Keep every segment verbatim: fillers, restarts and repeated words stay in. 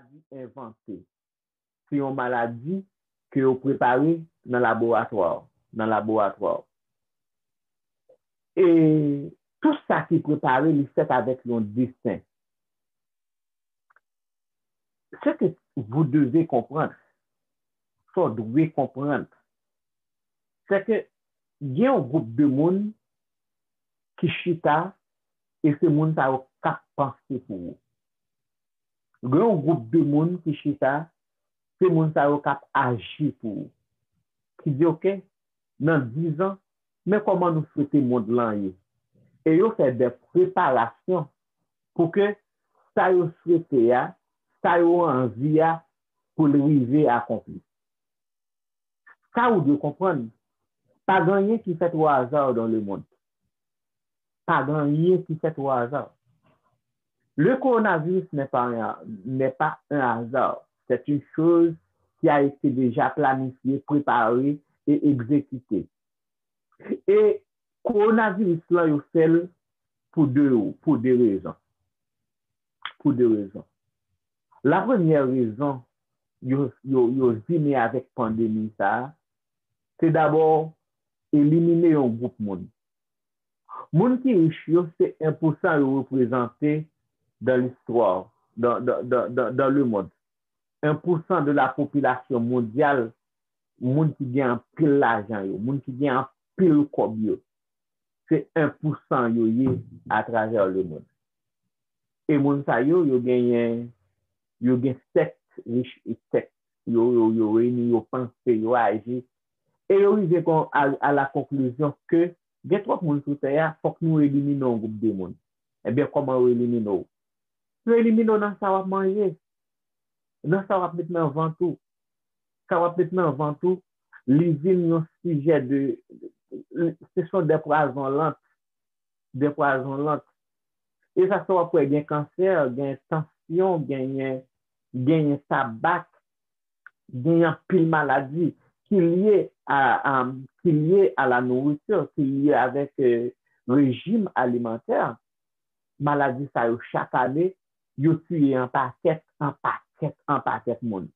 maladi envante. Se yon maladi ke yo prepare nan laboratwa, nan laboratwa. E tout sa ki prepare, li fèt avèk yon desen. Ce que vous devez comprendre, sa w dwe konprann, se ke gen yon gwoup de moun ki chita e se moun sa yo k ap panse pou ou. Gen yon gwoup de moun ki chita, se moun sa yo k ap aji pou ou. Ki di, oke, nan diz an, men kòman nou swete mond lan ye. E yo fè de preparasyon pou ke sa yo swete a, sa yo anvi a, pou l rive akonpli. Sa ou dwe konprann, pa gen anyen ki fèt au hasard dans le monde. Pa gen anyen ki fèt au hasard. Le coronavirus n'est pas un, n'est pas un hasard. C'est une chose qui a été déjà planifiée, préparée et exécutée. E kowonaviris lan, yo fè l pou de, pou de rezon. Pou de rezon. La premyè rezon yo, yo, yo vini avèk pandemi sa a, se dabò elimine yon gwoup moun. Moun ki rich yo, se en pousan yo reprezante dans l'histoire, dans, dans, dans, dans, dans le monde. En pousan de la popilasyon mondyal, moun ki gen anpil lajan yo, moun ki gen anpil kòb yo, se en pousan yo ye atravè le monde. E moun sa yo, yo genyen, yo gen sèk rich e sèk yo, yo, yo reyini, yo panse, yo aji. E yo rive kon, a, a la konklizyon ke gen twòp moun sou tè a, fòk nou elimine yon gwoup de moun. Ebyen, kòman yo elimine w? Yo elimine w nan sa w ap manje, nan sa w ap met nan vant ou. Sa w ap met nan vant ou, li vin yon sijè de, ce sont des poisons lents, des poisons lents. E sa fè w ap wè gen kansè, gen tansyon, genyen, genyen tabak, genyen anpil maladi ki lye a, a, ki lye a la nourriture, ki lye avèk, euh, rejim alimantè. Maladi sa yo chak ane, yo tiye an pakèt, an pakèt, an pakèt moun.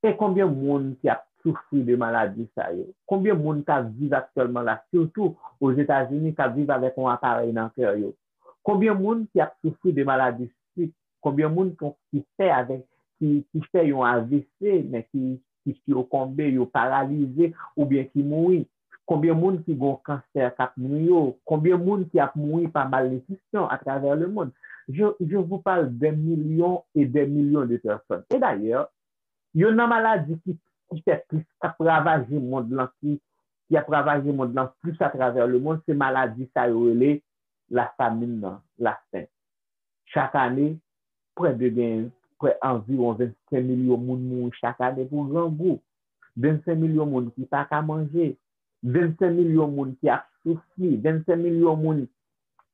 E konbyen moun ki ap soufri de maladi sa yo? Konbyen moun k ap viv aktyèlman la, sitou Ozetazini, k ap viv avèk yon aparèy nan kè yo? Konbyen moun ki ap soufri de maladi sik? Konbyen moun ki, ki fè avèk, ki, ki fè yon A V C, men ki, ki sikonbe, yo paralize, oubyen ki mouri? Konbyen moun ki gen kansè k ap nwi yo? Konbyen moun ki ap mouri pa malnitrisyon atravè le monde? Je, je vous parle des millions et des millions de personnes. E dayè, youn nan maladi ki, ki fè plis, k ap ravaje mond lan, ki, ki ap ravaje mond lan plis atravè le monde, se maladi sa yo rele lafamin nan, lafen. Chak ane, prè de gen, prè anviwon vennsenk milyon moun mouri chak ane pou grangou. Vennsenk milyon moun ki pa ka manje. Vennsenk milyon moun ki ap soufri. Vennsenk milyon moun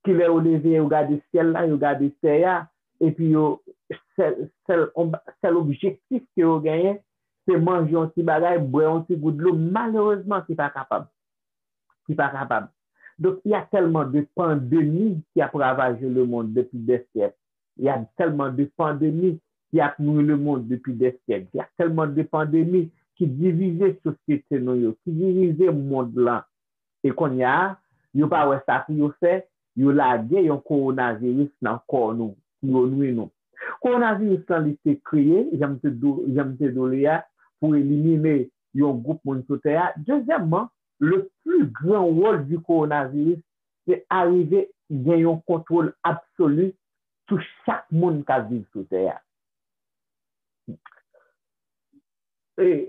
ki lè yo leve, yo gade syèl la, yo gade tè a, epi yo, sèl, sèl, sèl objektif ke yo genyen, se manje yon ti bagay, bwè yon ti gout dlo, malerezman, ki pa kapab. Ki pa kapab. Donc, il y a tellement de pandémies qui a ravagé le monde depuis des siècles. Il y a tellement de pandémies qui a nui le monde depuis des siècles. Il y a tellement de pandémies ki divize sosyete nou yo, ki divize mond lan. E kounye a, yo pa wè sa pou yo fè, yo lage yon kowonaviris nan kò nou, pou yo nui nou. Kowonaviris lan, li te kreye, jan m te di w, jan m te di w li a, pou elimine yon gwoup moun sou tè a. Dezyèmman, le plus grand rôle du coronavirus, se arive gen yon kontwòl absoli sou chak moun k ap viv sou tè a. E,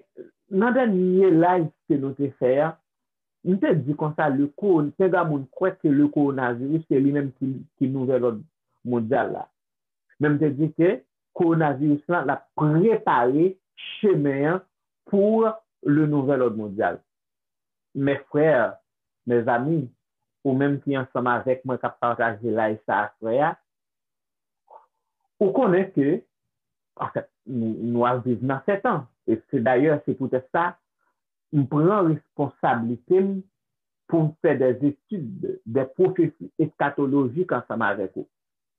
nan dènye live ke nou te fè a, m te di konsa, le ko-, penga moun kwè ke le coronavirus se li menm ki, ki nouvèl òd mondyal la. Men m te di ke kowonaviris lan, l ap prepare chemen an pou le nouvel ordre mondial. Mes frères, mes amis, ou menm ki ansanm avèk mwen k ap pataje live sa aswè a, ou konnen ke, anfèt, nou, nou ap viv nan fè tan. E se dayè, se poutèt sa, m pran responsablite m pou m fè des études, des prophéties eschatologiques ansanm avèk ou.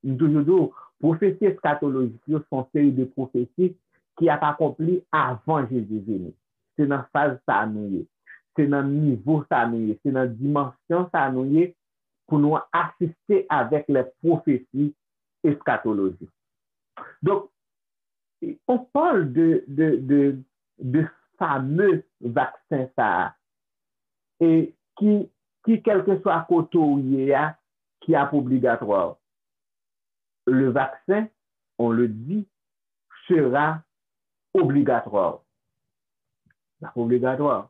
M toujou di w, pwofesi eskatolojik yo se yon seri de pwofesi ki ap akonpli avan Jezi vini. Se nan faz sa a nou ye. Se nan nivo sa a nou ye. Se nan dimansyon sa a nou ye pou nou asiste avèk lè pwofesi eskatolojik. Donk, on parle de, de, de, de fameux vaksen sa a, e ki, ki kèlkeswa kote w ye a, ki ap obligatwa. Le vaccin, on le dit, sera obligatoire. L ap obligatwa.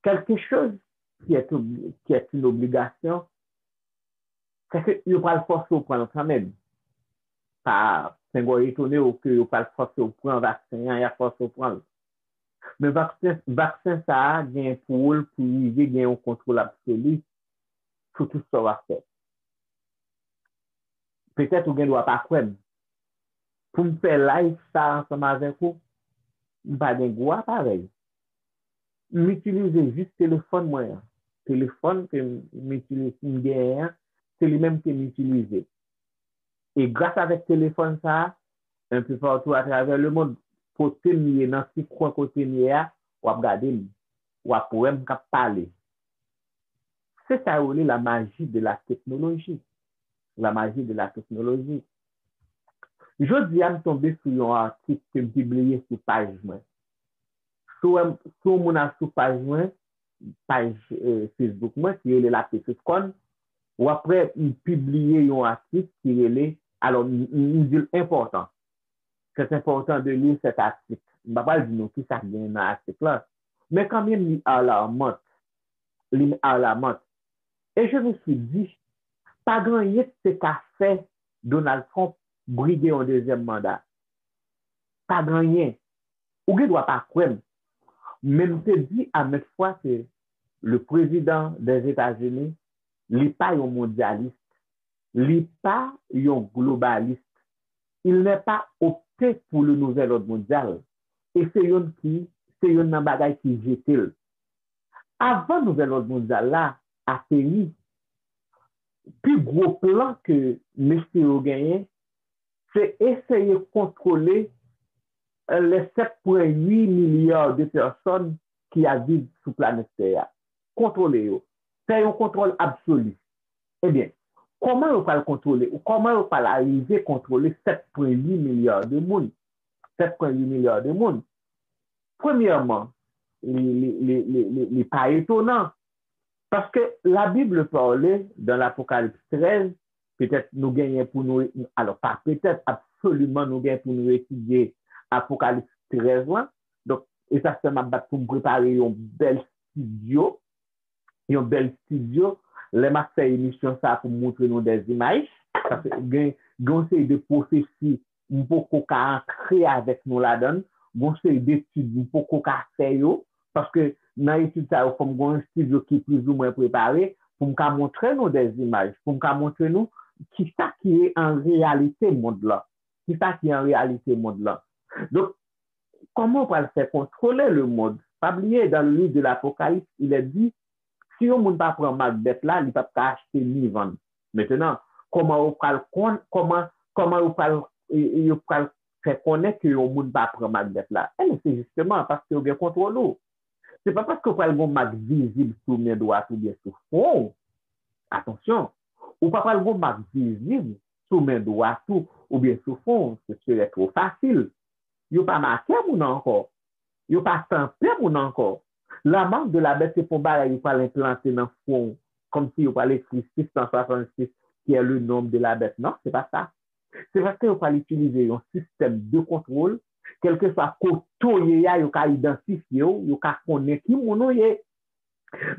Quelque chose qui est, obli- qui est une obligation, c'est que yo pral fòse w pran l kanmenm. Pa, pengò etone w ke yo pral fòse w pran vaksen an, y ap fòse w pran l. Men vaksen, vaksen sa a gen pou wòl pou rive gen yon kontwòl absoli sou tout sa w ap fè. Petèt ou gen dwa pa kwè m. Pou m fè live sa ansanm avèk ou, m pa gen gwo aparèy. M itilize jis telefòn mwen an. Telefòn ke m itilize, m genyen an, se li menm ke m itilize. E gras avèk telefòn sa a, enpe patou atravè lemonn, kote m ye, nan ti kwen kote m ye a, w ap gade m, w ap wè m k ap pale. Se sa yo rele la magie de la technologie. La magie de la technologie. Jodi a, m tonbe sou yon atik ke m pibliye sou paj mwen. Si w, si w moun al sou paj mwen, paj eh, Facebook mwen, ki rele La Petite Corne, w ap wè m pibliye yon atik ki rele, alò, m, m, m di l enpòtan. C'est important de lire cet article. M pa pral di nou ki sa k genyen nan atik la, men kanmenm li alarmant. Li alarmant. Et je me suis dit, pa gen anyen ki te ka fè Donald Trump brige yon dezyèm manda. Pa gen anyen. Ou gen dwa pa kwè m. Men m te di a maintes fois ke le président des États-Unis, li pa yon mondyalis, li pa yon globalis. Il n'est pas opté pour le nouvel ordre mondial. E se youn ki, se youn nan bagay ki jete l. Avan nouvèl òd mondyal la ateri, pi gwo plan ke mesye yo genyen, se eseye kontwole les sept point huit milliards de personnes ki ap viv sou planèt tè a. Kontwole yo. Fè yon kontwòl absoli. Ebyen, kòman yo pral kontwole, kòman yo pral arive kontwole sept point huit milliards de moun? Sept point huit milliards de moun. Premyèman, li, li, li, li, li, li pa etonan. Paske la Bible parle dans l'Apocalypse treize, petèt nou genyen pou nou, alò pa petèt, absoliman nou genyen pou nou etidye Apokalips trèz lan. Donk, e sa fè m ap bat pou m prepare yon bèl estidyo, yon bèl estidyo. Lè m ap fè emisyon sa pou m montre nou dè imaj, paske gen, gen yon seri de pwofesi m poko ka antre avèk nou ladan l, gen yon seri de etid m poko ka fè yo, paske nan etid sa yo, fò m gen yon estidyo ki plizoumwen prepare pou m ka montre nou dè imaj, pou m ka montre nou kisa ki ye an reyalite mond lan. Kisa ki an reyalite mond lan. Donk, kòman w pral fè kontwole le mond? Pa bliye, dans le livre de l'Apocalypse, il est dit, si yon moun pa pran mak bèt la, li p ap ka achte ni vann. Mentenan, kòman yo pral konn, kòman, kòman yo pral, e, e, yo pral fè konnen ke yon moun pa pran mak bèt la? Ebyen, se jisteman paske yo gen kontwòl ou. Se pa paske w pral gen yon mak vizib sou men dwat oubyen sou fwon w. Atansyon, ou pa pral gen yon mak vizib sou men dwat ou oubyen sou fwon w. Ce serait trop facile. Yo pa make moun ankò. Yo pa tanpe moun ankò. La marque de la bête, se pa yon bagay yo pral enplante nan fwon w, kòmsi yo pral ekri six cent soixante-six, qui est le nombre de la bête. Non, se pa sa. Se paske yo pral itilize yon sistèm de kontwòl, kèlkeswa kote w ye a, yo ka idantifye w, yo ka konnen ki moun ou ye.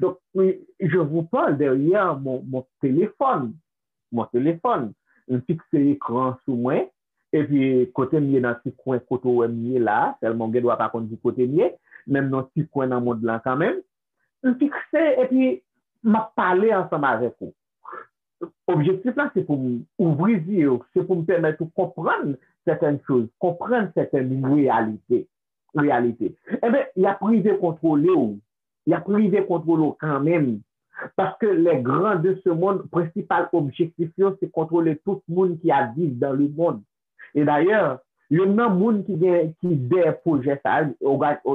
Donc, oui, je vous parle derrière mon, mon téléphone. Mon téléphone. M fikse ekran sou mwen, epi kote m ye nan ti kwen kote w wè m ye la, sèlman w gen dwa pa konn ki kote m ye, men m nan ti kwen nan mond lan kanmenm. M fikse epi m ap pale ansanm avèk ou. Objektif la, se pou m ouvri zye w, se pou m pèmèt ou konprann sètèn choz, konprann sètèn reyalite. Reyalite. Enben, y ap rive kontwole w. Y ap rive kontwole w kanmenm. Paske les grands de ce monde, prensipal objektif yo, se kontwole tout moun ki ap viv dans le monde. E dayè, youn nan moun ki gen, ki dèyè pwojè sa a,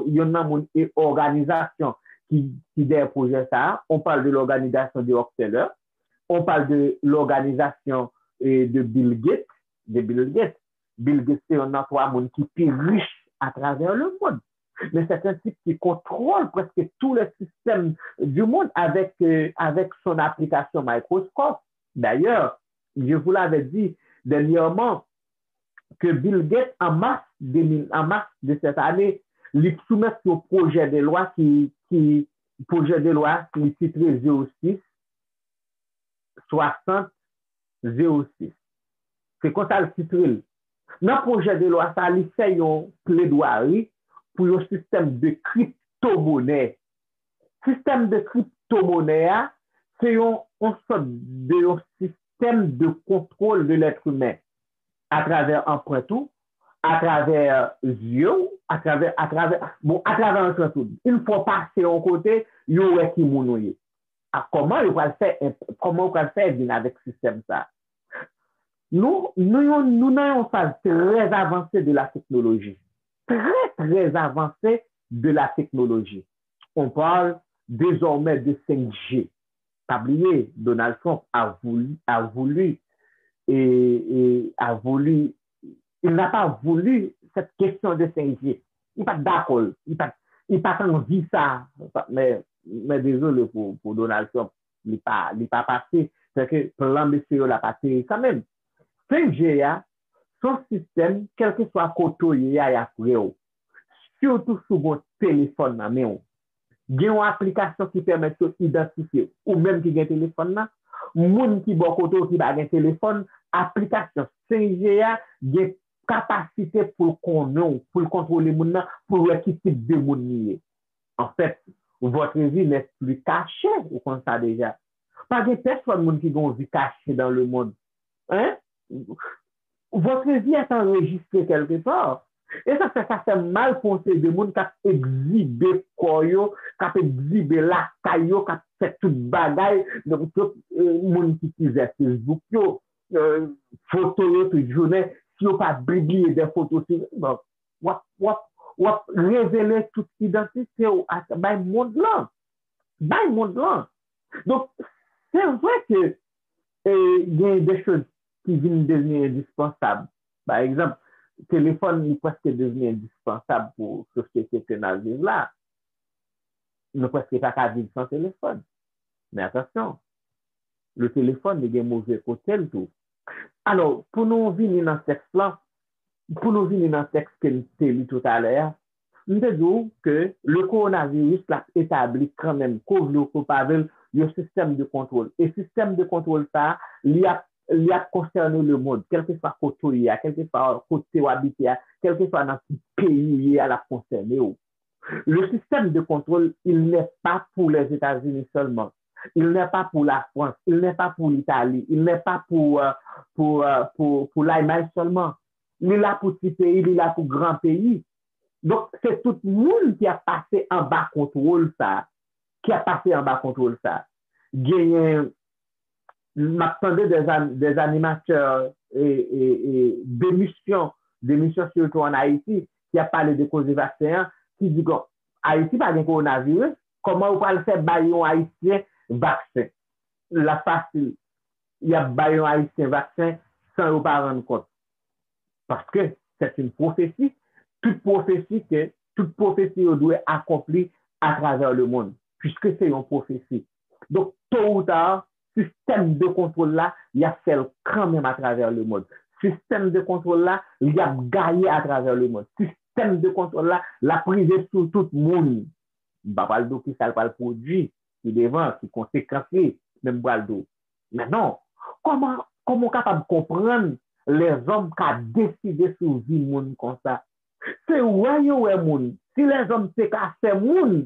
youn nan moun e òganizasyon ki, ki dèyè pwojè sa a, on parle de l'organisation de Rockefeller, on parle de l'organisation eh, de Bill Gates, de Bill Gates. Bill Gates se youn nan twa moun ki pi rich atravè le monde. Mais c'est un type qui contrôle presque tous les systèmes du monde avec, euh, avec son application Microsoft. D'ailleurs, je vous l'avais dit dernièrement que Bill Gates, en mars deux mille, en mars de cette année, li soumèt yon pwojè de lwa ki, ki pwojè de lwa ki titre zéro six soixante zéro six. Se konsa l titre l. Nan pwojè de lwa sa, li fè yon pledwari pou yon sistèm de kriptomonè. Sistèm de kriptomonè a, se yon, yon sòt de yon sistèm de kontwòl de lèt imen atravè anprent ou, atravè zye w, atravè, atravè, bon, atravè anprent ou. Yon fwa w pase yon kote, yo wè ki moun ou ye. A, kòman yo pral fè, kòman yo pral fè vin avèk sistèm sa? Nou, nou, yon, nou nan yon faz trè avanse de la teknoloji. Trè, trè avanse de la teknoloji. On parle désormais de cinq G. Pa bliye, Donald Trump a voulu, a voulu, et, et a voulu, il n'a pas voulu cette question de cinq G. Li pa t dakò, li pa t, li pa t anvi sa, men, men dezole pou, pou Donald Trump, li pa, li pa pase. Sèke plan mesye yo la pa teri kanmenm. Cinq G a, se yon sistèm, kèlkeswa kote w ye a, y ap wè w. Sitou si w gen yon telefòn nan men w. Gen yon aplikasyon ki pèmèt yo idantifye ou menm ki gen telefòn nan, moun ki bò kote w ki pa gen telefòn, aplikasyon cinq G a gen kapasite pou l konnen w, pou l kontwole moun nan, pou l wè ki tip de moun li ye. Anfèt, votre vie n'est plus cachée, ou konn sa deja. Pa gen pèsonn moun ki gen yon vi kache dans le monde. Hein? Votre vie est enregistrée quelque part. E sa fè, sa fè mal pou yon seri de moun k ap egzibe kò yo, k ap egzibe lakay yo, k ap fè tout bagay. Donk, tout, euh, moun ki itilize Facebook yo, euh, foto yo tout jounen, si yo pa pibliye de foto, si, bon, w ap, w ap, w ap revele tout idantite w a bay mond lan. Bay mond lan. Donk, se vre ke, e, gen de choz ki vin devni endispansab. Pa egzanp, telefòn li prèske devni endispansab pou sosyete ke n ap viv la. Nou prèske pa ka viv san telefòn. Men atansyon, le téléphone li gen move kote l tou. Alò, pou nou vini nan tèks lan, pou nou vini nan tèks ke n te li toutalè a, m te di w ke le coronavirus l ap etabli kanmenm, ke w vle w ke w pa vle l, yon sistèm de kontwòl. E sistèm de kontwòl sa a, li ap, li ap konsène le monde, kèlkeswa kote w ye a, kèlkeswa kote w abite a, kèlkeswa nan ki peyi w ye a, l ap konsène w. Le système de contrôle, il n'est pas pour les États-Unis seulement. Il n'est pas pour la France. Il n'est pas pour l'Italie. Il n'est pas pour, euh, pour, euh, pour, pour l'Allemagne seulement. Li la pou ti peyi, li la pou gran peyi. Donk, se tout moun ki ap pase anba kontwòl sa, ki ap pase anba kontwòl sa. Genyen, m ap tande des, an- des animateurs e, e, e, demisyon, demisyon sitou an Ayiti, ki ap pale de koze vaksen an, ki di, bon, Ayiti pa gen kowonaviris, kòman yo pral fè bay yon Ayisyen vaksen? L ap fasil. Y ap bay yon Ayisyen vaksen san yo pa rann kont. Paske c'est une prophétie. Tout pwofesi ke, tout pwofesi yo dwe akonpli atravè le monde, puisque se yon pwofesi. Donk, to ou ta, sistèm de kontwòl la, y ap fè l kanmenm atravè le monde. Sistèm de kontwòl la, y ap gaye atravè le monde. Sistèm de kontwòl la, l ap rive sou tout moun. M pa pral di w ki sa l pral pwodui pi devan, ki konsekans li, men m pral di w. Men non, kòman, kòman w kapab konprann lèzòm ka deside sou vi moun konsa? Se wè yo wè moun. Si lèzòm te ka fè moun,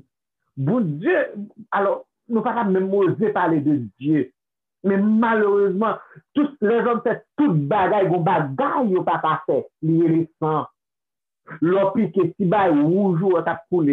Bondye, alò, nou pa t ap menm oze pale de Dye. Men malerezman, tout, lèzòm fè tout bagay, gon bagay yo pa ka fè, li rele san. Lè w pike, ti bay wouj ou an k ap koule,